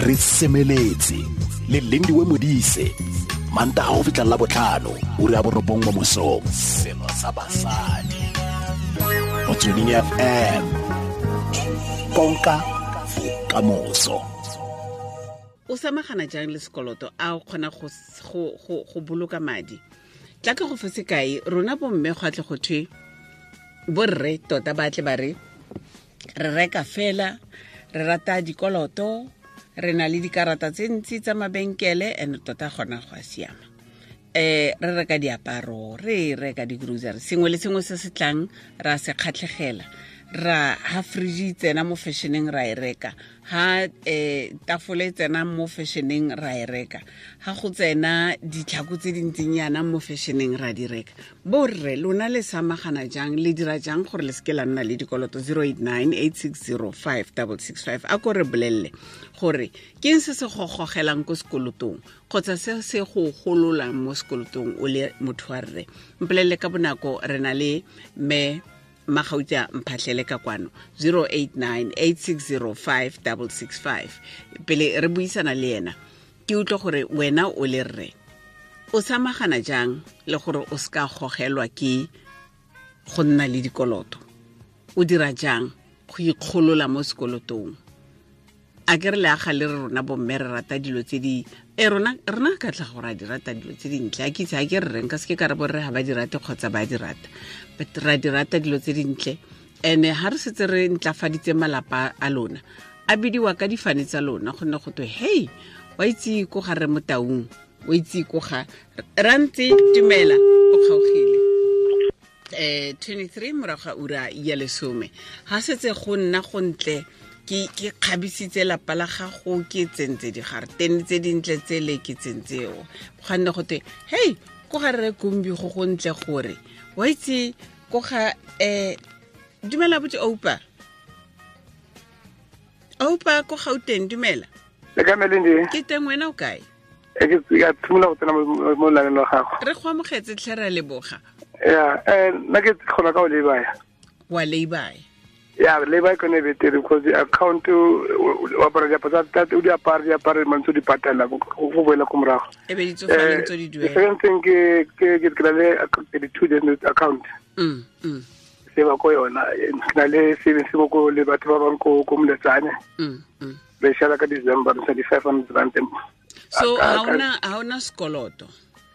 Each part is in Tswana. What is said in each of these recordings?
Re semeletse le Lindiwe Modise, Mantaga go fitlha la botlhano, ura ya 9 mo mosong. Selo sa basadi. Motsweding FM. Konka bokamoso. O samagana jang le sekoloto? A o kgona go boloka madi? Tla ke go fe sekai, rona bomme go atle go thwe borre tota ba tle ba re re reka fela, re rata dikoloto, re na le dikarata tse ntsi tsa mabenkele, and tota gona go a siama. Re reka diaparo, re reka di-grocery, sengwe le sengwe se se tlang ra se kgatlhegela. Ra ha fridge tsena mo fashioneng ra e reka, ha tafole tsena mo fashioneng ra e reka, ha go tsena ditlhako tse dintsinyana mo fashioneng ra di reka. Borre lona le samagana jang, le dira jang gore le seke la nna le dikoloto? 089 860 5665. A ko re bolelle gore ke eng se se go gogelang ko sekolotong kgotsa se se go gololang mo sekolotong o le motho wa rre. Mpolelle ka bonako, re na le mme Magauta Mphahlele ka kwano, 089 860 5665. Pele re buisana le ena, ke utlwe gore wena o le rre o samagana jang le gore o ska gogelwa ke go nna le dikoloto? O dira jang go ikgolola mo sekolotong? A ke re le aga le re rona bomme re rata dilo tse di rona ka tla gore a di rata dilo tse dintle. A ke itse, a ke re reng ka seke ka re borre ga ba di rate kgotsa ba di rata, but ra di rata dilo tse dintle. Ene ha re setse re ntlafaditse malapa a lona, a bidiwa ka difane tsa lona, gonne go twe hey, wa itse ko ga re Motaung, o itse ko ga Rantse. Dumela, o kgaogile. 23 morago ga ura ya 10. Ha setse go nna go ntle, ke kgabisitse lapa la gago, ke tsentse digaretene tse dintle tsele ke tsentseo, gonne go twe hey, ko ga rre Kumbi go go ntle gore wa itse ko ga dumela botse Oupa. Oupa ko Gauteng, dumela. Le ka Melindi? Ke teng, wena o kae? Ke ya tshimola go tsena mo laneng la gago. Re go amogetse tlhe, re a leboga. Ya, nna ke kgona ka o lay-by. Wa lay-by? Ya, lay-by ke yone e betere because the account o apara diaparo tsa tate, o di apare, di apare, mantse o di patela, go boela ko morago. E be di tsofale ntse di duela. The second thing ke na le 32 days account. Se ba ko yona, ke na le savings mo ko le batho ba bang ko Moletsane. Re share ka December, re sa di 500 rand. So ha ona sekoloto?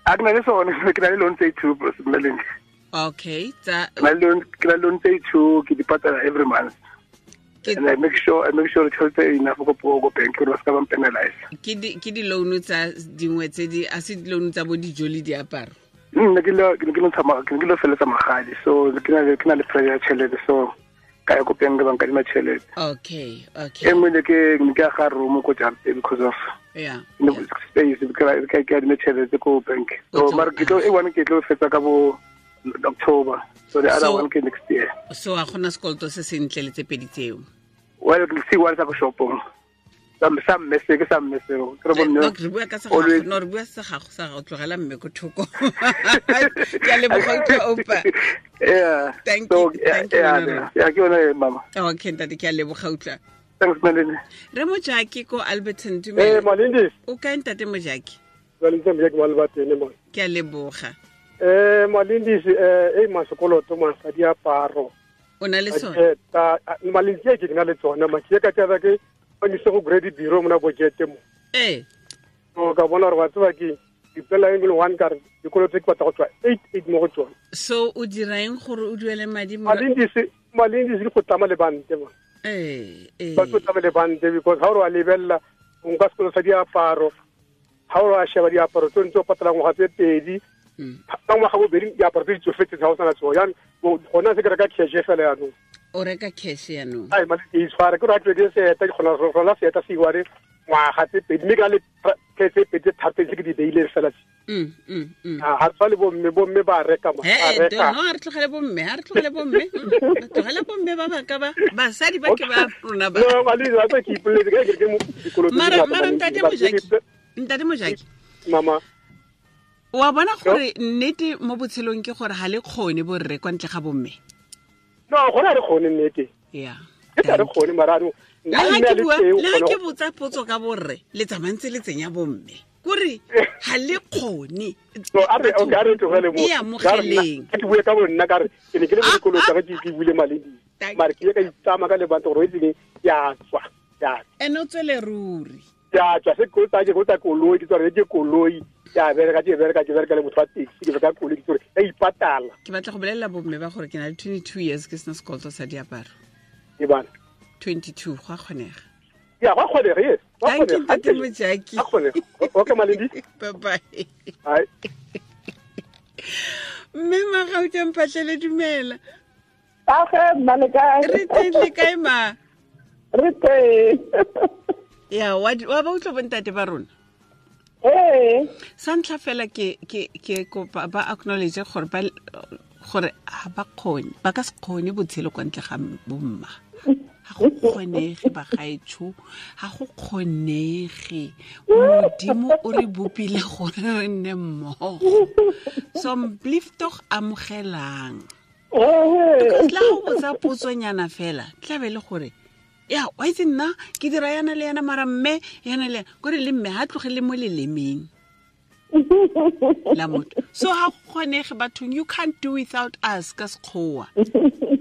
A ke na le sone, ke na le loan tse 2, Melindi. Okay, tsa ke na le loan tse 2, ke di patala every month. And I make sure tšhelete enough go go bank gore ba ska ba penalize. Ke di loan tsa dingwe tse di a se di loan tsa bo dijo le diaparo? Nna ke lo ke lo tsamaya, ke lo feletsa magadi, so ke na le pressure ya tšhelete, so ka ya ko bank ba nkadima tšhelete. Okay. E nngwe ne ke aga room ko jarateng because of yeah. Space, ke adime tšhelete ko bank. So mara ke tlo e one ke tlo fetsa ka bo October. So the other one ke next year. So a gona sekoloto se sentle le tse pedi tseo? Well, ke se one sa ko shopong. Sa mme se, ke sa mme seo. Ke re bo mme No, re bua ka sa gago, no, re bua sa gago, sa gago, tlogela mme ko thoko. Ke a leboga, utlwa, Oupa. Yeah. Thank So, you, thank you, yeah, Nora. yeah, yeah, ke yone, mama. Okay, ntate, ke a leboga, utlwa. Thanks, Malindi. Re Mojaki ko Alberton, dumela. Eh, Malindi. O kae, ntate Mojaki? Malindi, Mojaki wa Alberton, mo. Ke a leboga. Malindi, ma sekoloto, ma sa diaparo. O na le sone? Ta, Malindi, ke na le tsone, ma ke ka taba ke ba ise go grade bureau mona budget mo. So ka bona gore wa tseba ke dipela e le one ka re dikoloto tse ke batla go tswa 8 mo go tsone. So o dira eng gore o duele madi mo? Malindi se go tlama le bante mo. Ba tlo tlama le bante because ha o re wa lebella o nka sekolo sa diaparo, ha o re wa sheba diaparo tse ntse o patala ngwaga tse pedi, ka ngwaga bobedi diaparo tse di tsofetseng ga o sana tsone. Jaanong, gona se ke reka cash fela jaanong. O reka cash jaanong? Ai, mali ke itshware, ke re ha ke seeta, ke kgona go rola seeta se iware ngwaga tse pedi, mme ka le tse pedi tse tharo tse ke di beileng fela tse. Ha tshwane bomme, bomme ba reka mo, ba reka. No, ha re tlogele bomme, ha re tlogele bomme. Re tlogele bomme ba ba ka ba, basadi ba ke ba rona ba. No, mali, wa tsa ke ipoletse, ke ke mo dikoloto tse Mara, ngata, mara, Malindi, ntate ba ke Mojaki, ke ntate Mojaki. Mama. Wa bona gore nnete mo botshelong ke gore ha le kgone borre kwa ntle ga bomme? No, gona re kgone nnete. Yeah. Ke tla re kgone, mara no, Le ha ke botsa potso ka borre le tsamantse le tsenya bomme kore ha le kgone. So a re okay, a re tlogele mo. Ke bue ka bonna ka re ke ne ke le mo dikolo tsa ke buile maledi. Mare ke ka itsama ka lebanta gore o itseng ya tswa. Ya. Ene o tswele ruri. Ya tswa se go tsa ke go tsa koloi ke tswa ke koloi ya bereka ke bereka ke bereka le motho wa taxi ke bereka koloi ke tsore ya ipatala. Ke batla go bolelela bomme ba gore ke na le 22 years ke sena sekoloto sa diaparo. Ke bana 22 go a kgonega. Ya go kgonega, yes. Thank you, Ntate Mojaki. Okay, Malindi. Bye-bye. Bye. Mme Magauta Mphahlele, dumela. Age, mma le kae? Re teng, le kae ma? Re teng. Ya, wa ba utlwa bontate ba rona? Ee. Sa ntlha fela ke kopa ba acknowledge gore ba gore ha ba kgone, ba ka se kgone botshelo kwa ntle ga bomma. Ha go kgonege bagaetsho, ha go kgonege. Modimo o re bopile gore re nne mmogo. So mblief tog amogelang. Because la go botsa potsonyana fela, tla be le gore ya wa itse nna ke dira yana le yana mara mme yana le kore le mme ha tlogele mo lelemeng la motho. So ha kgonege bathong, you can't do without us ka sekgowa.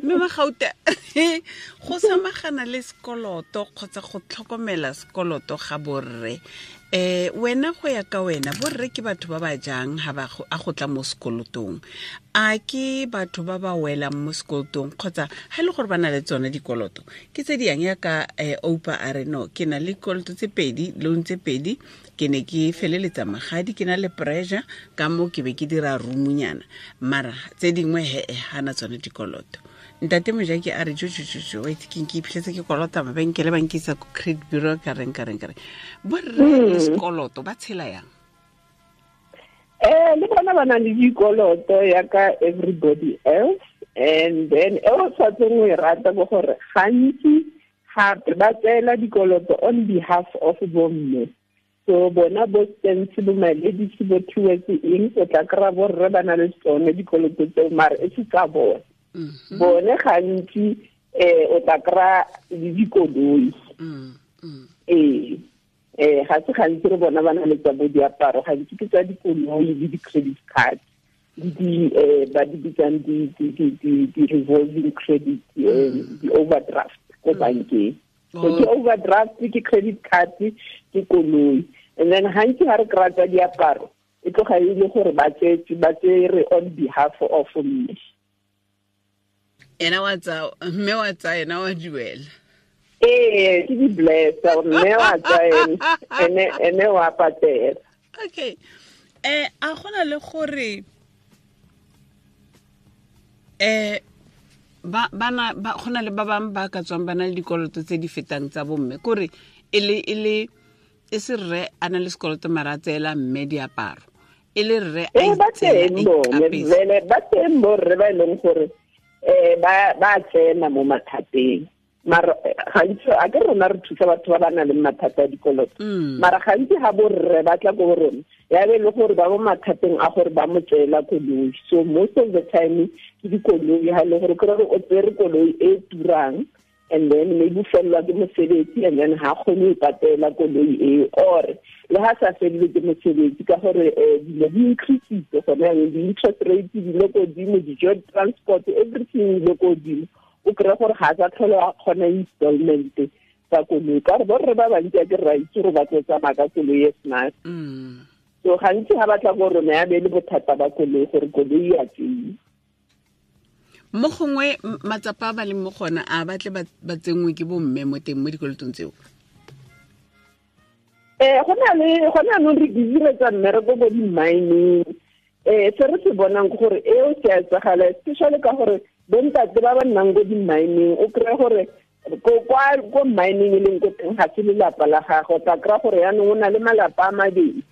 Mme Magauta, go samagana le sekoloto kgotsa go tlhokomela sekoloto ga borre, wena go ya ka wena borre ke batho ba ba jang ha ba a go tla mo sekolotong? A ke batho ba ba welang mo sekolotong kgotsa ha ile gore ba na le tsone dikoloto ke tse di yang ya ka Oupa a re no ke na le dikoloto tse pedi, loan tse pedi, ke ne ke feleletsa magadi, ke na le pressure ka mo ke be ke dira roomnyana, mara tse dingwe he hana tsone dikoloto. Ntate Mojaki a re jo wait ke ke iphitlhetse ke kolota mabenkele ba nkisa ko credit bureau ka reng borre le sekoloto ba tshela yang? Le bona ba na le dikoloto ya ka everybody else, and then e o tshwanetseng o e rata bo gore gantsi gape ba tseela dikoloto on behalf of bomme. So bona bo stance bo maledisi bo towards eng, o tla kry-a borre ba na le tsone dikoloto tseo mare e se tsa bone. Bone gantsi o tla kry-a le dikoloi. Ga se gantsi re bona ba na le tsa bo diaparo, gantsi ke tsa dikoloi le di-credit card le di ba di bitsang di-revolving credit, di-overdraft ko bankeng. So ke overdraft, ke credit card, ke koloi. And then gantsi ga re kry-a tsa diaparo e tloga e le gore ba tsere on behalf of mme. Ena wa tsa mme wa tsa ena wa duela. Ee, ke di blessa mme wa tsa ene ene wa patela. Okay. A gona le gore ba bana ba gona le ba bang ba ka tswang ba na le dikoloto tse di fetang tsa bomme, kore e le e se rre a na le sekoloto mara a tseela mme diaparo, e le rre a itseela ba teng borre ba e leng gore ba tsena mo mathateng. Mara gantsi a ke rona re thusa batho ba ba nang le mathata a dikoloto, mara gantsi ga borre ba tla ko rona ya be le gore ba mo mathateng a gore ba mo tseela koloi. So most of the time ke dikoloi, ha le gore kry o tsere koloi e turang and then maybe fellwa ke mosebetsi and then ha kgone ho patela koloi eo, or le ha sa fellwe ke mosebetsi ka gore dilo di increasitse gone jaanong, di-interest rate di le kodimo, dijo, transport, everything di le kodimo. O kry-a gore ga a sa tlhole a kgona installment tsa koloi, ka gore borre ba bantsi a ke ra itse gore ba tlo tsamaya ka koloi e smart. So gantsi ga ba tla ko rona ya be le bothata ba koloi gore koloi ya tseiwa. Mo gongwe matsapa a ba leng mo gona a batle ba tsenngwe ke bomme mo teng mo dikolotong tseo. Go na le gone anong re busy re tsa mmereko ko di-mining. Se re se bonang ke gore eo se a etsagala, especially ka gore bontate ba ba nnang ko di-mining, o kry-e gore ko mining e leng ko teng ga se lelapa la gagwe, o tla kry-a gore yaanong o na le malapa a mabedi,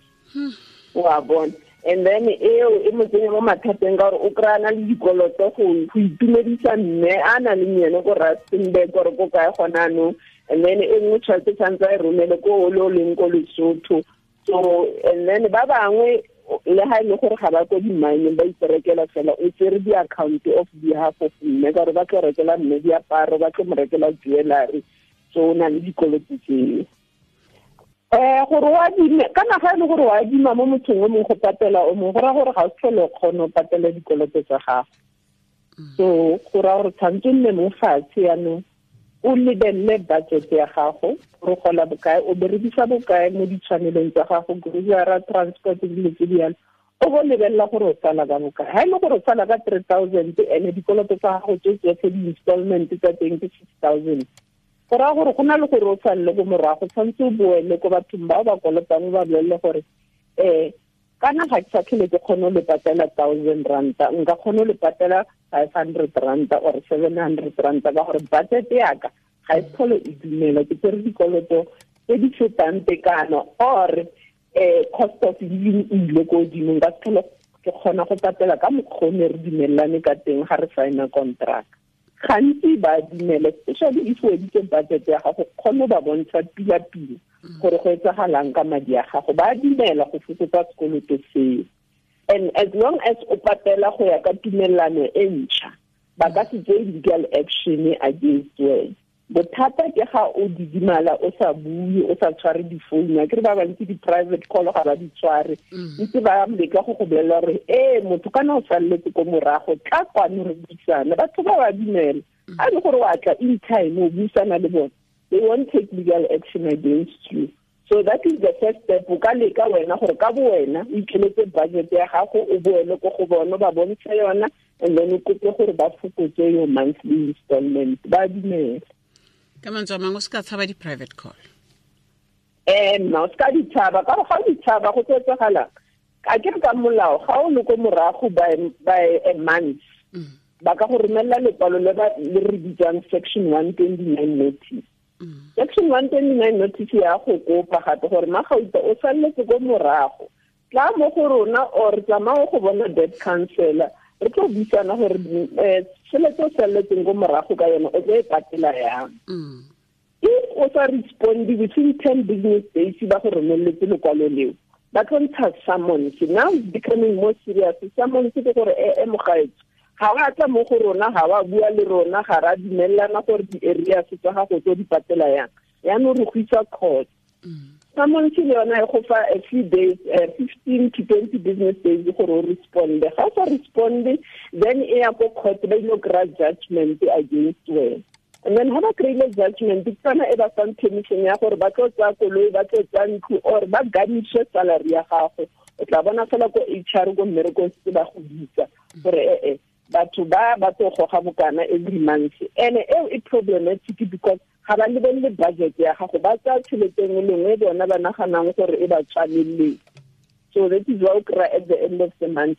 wa bona. And then eo e mo tsenya mo mathateng ka gore o kry-a na le dikoloto go itumedisa mme a na leng ene ko Rustenburg or ko kae gone anong, and then e nngwe tšhelete tshwanetse a e romele ko o le o leng ko Lesotho. So and then ba bangwe le ha e le gore ga ba ko di-mining ba iperekela fela, o tsere di-account of behalf of mme ka gore ba tlo rekela mme diaparo, ba tlo mo rekela jewellery. So o na le dikoloto tseo. Gore o adime kana ga e le gore o adima mo mothong o mongwe go patela o mongwe, go raya gore ga o tlhole o kgone go patela dikoloto tsa gago. So go raya gore tshwanetse o nne mo fatshe yaanong o lebelele budget ya gago, gore gola bokae, o berekisa bokae mo ditshwanelong tsa gago, grocery, transport, dilo tse di yalo. O bo lebelela gore o sala ka bokae. Ha e le gore o sala ka 3,000 ene dikoloto tsa gago tse tsotlhe di-installment tsa teng ke 6,000. Go raya gore go na le gore o salele ko morago, tshwanetse o boele ko bathong bao ba kolotang o ba bolelele gore kana ga ke sa tlhole ke kgone go le patela 1,000 ranta, nka kgone go le patela 500 ranta or 700 ranta ka gore budget yaka ga e tlhole e dumela, ke tsere dikoloto tse di fetang tekano or cost of living e ile ko godimo, nka se tlhole ke kgona go patela ka mokgwa o ne re dumelelane ka teng ga re signa contract. Gantsi ba dumela, especially if o editse budget ya gago, kgone ba bontsha pila-pila gore go etsagalang ka madi a gago, ba dumela go fokotsa sekoloto seo. And as long as o patela go ya ka tumelelano e ntšha, ba ka se tseye legal action against wena. Bothata ke ga o didimala, o sa bue, o sa tshware difounu. Akere ba bantsi di-private call ga ba di tshware, ntse ba leka go go bolelela gore motho kana o saletse ko morago, tla kwano re buisane. Batho ba ba dumela, a le gore wa tla in time o buisana le bone, they won't take legal action against you. So that is the first step. O ka leka wena gore ka bo wena o ikeletse budget ya gago, o boele ko go bona ba bontshe yona, and then o kope gore ba fokotse your monthly installment. Ba dumela. Ka mantswe a mangwe o se ka tshaba di-private call. Nna o se ka ditshaba, ka gore ga o ditshaba go tlo etsagalang. A ke re ka molao ga o le ko morago by a month, ba ka go romelela lekwalo le re bitsang section 129 notice. Section 129 notice ya go kopa gape gore Magauta o saletse ko morago, tla mo go rona or tsamaya go bona debt counselor, re tlo buisana gore tšhelete o saletseng ko morago ka yone o tlo e patela yang. If o sa responde within 10 business days ba go romeletse lekwalo leo, ba tlo ntsha summons. Now it's becoming more serious. Summons ke gore mogaetso, ga wa tla mo go rona, ga wa bua le rona, ga ra dumelelana gore di-areas tsa gago tlo di patela yang, yaanong re go isa court. Summons le yona e go fa a few days, 15 to 20 business days gore o responde. Ga o sa responde, then e ya ko court, ba ile kry-a judgment against wena. And then ha ba kry-ile judgment, ke tsona e ba fang permission ya gore ba tlo tsaya koloi, ba tlo tsaya ntlo, or ba garnishe salary ya gago. O tla bona fela ko HR ko mmerekong se ba go bitsa gore batho ba ba tlo goga bokana every month. And eo e problematic because ga ba lebelele budget ya gago, ba tsaya tšhelete nngwe le nngwe bona ba naganang gore e ba tshwaneleng. So that is why o kry-a at the end of the month.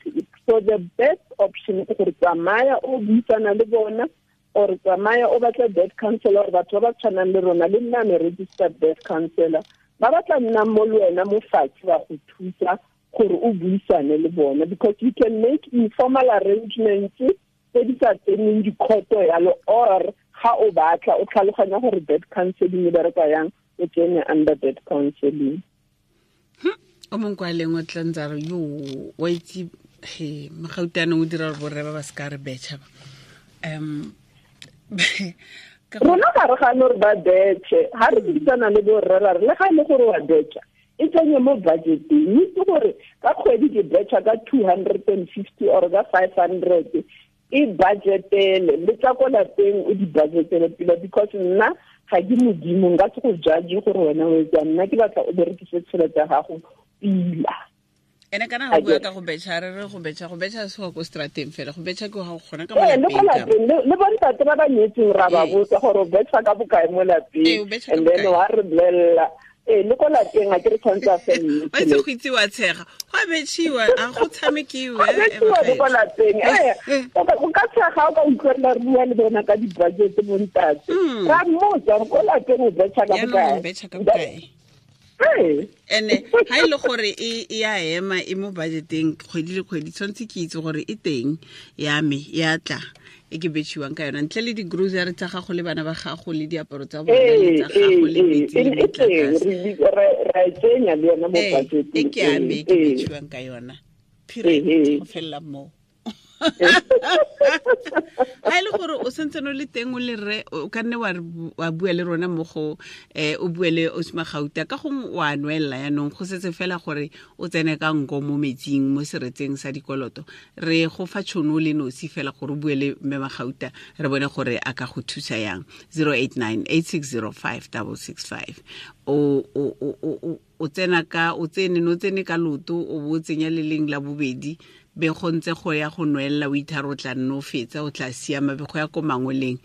So the best option ke gore tsamaya o buisana le bona, or tsamaya o batla debt counselor, or batho ba ba tshwanang le rona, le nna me registered debt counselor, ba batla nna mo le wena mo fatshe ba go thusa gore o buisane le bona, because you can make informal arrangements tse di sa tseneng dikhoto yalo, or ga o batla o tlhaloganya gore debt counseling e bereka yang, o tsene under debt counseling. O mongwe kwa leng o tla ntse a re yo wa itse he Magautane o dira gore borre ba ba se ka re betšha ba. Rona ga re gane gore ba betšhe, ga re buisana le borre ra re le ga e le gore wa betšha, e tsenye mo budgeteng. Itse gore ka kgwedi ke betšha ka 250 or ka 500, e budgetele le tsa ko lapeng o di budgetele pila, because nna ga ke modimo, nka se go judge gore wena o etsang, nna ke batla o berekise tšhelete ya gago pila. Ene kana go bua ka go betšha, re re go betšha se go ko strateng fela, go betšha ke ga go kgona ka mo lapeng. Le bontate ba ba nyetseng ra ba botsa gore o betšha ka bokae mo lapeng, and then wa re bolelela le ko lapeng a ke re tshwanetse a felle. Wa itse go itse wa tshega, go a betšhiwa, a go tshamekiwe. Go betšhiwa le ko lapeng. O ka tshega o ka utlwelela re bua le bona ka di-budget bontate. Ra mmotsa ko lapeng o betšha ka bokae. Jaanong o betšha ka bokae. Ene ha ile gore e ya ema e mo budgeteng kgwedi le kgwedi, tshwanetse ke itse gore e teng ya me ya tla e ke betšhiwang ka yona, ntle le di-grocery tsa gago le bana ba gago le diaparo tsa bona le tsa gago le metsi le motlakase. Ra e tsenya le yona mo budgeteng. E ke ya me e ke betšhiwang ka yona. Period. Go felela moo. Ga e le gore o sentse no le teng o le rre, o ka nne wa bua le rona mo go o bue le Osima Gauta, ka gongwe wa nwelela yaanong go setse fela gore o tsene ka nko mo metsing mo seretseng sa dikoloto. Re go fa tšhono le nosi fela gore o bue le mme Magauta, re bone gore a ka go thusa yang. 089 8605 665. O tsena ka o tsene no tsene ka loto, o bo o tsenya le leng la bobedi, be go ntse go ya go nwelela, o ithare o tla nne o fetsa, o tla siama, be go ya ko mangoleng,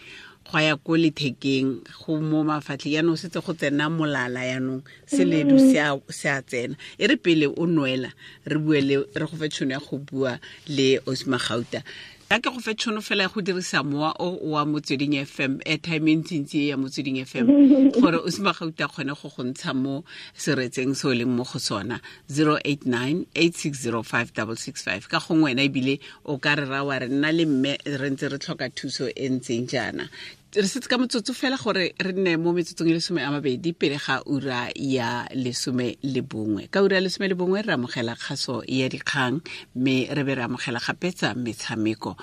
go ya ko lethekeng, go mo mafatlheng, yaanong setse go tsena molala, yaanong seledu se a tsena. E re pele o nwela, re bue le, re go fe tšhono ya go bua le Osima Gauta. Ka ke go fe tšhono fela ya go dirisa mowa o wa Motsweding FM, airtime e ntsintsi e ya Motsweding FM, gore Osima Gauta kgone go go ntsha mo seretseng se o leng mo go sona. 089 8605 665. Ka gongwe wena ebile o ka re ra wa re nna le mme re ntse re tlhoka thuso e ntseng jaana. Re setse ka motsotso fela gore re nne mo metsotsong e 20 pele ga ura ya 11. Ka ura ya 11 re amogela kgaso ya dikgang, mme re be re amogela gape tsa metshameko.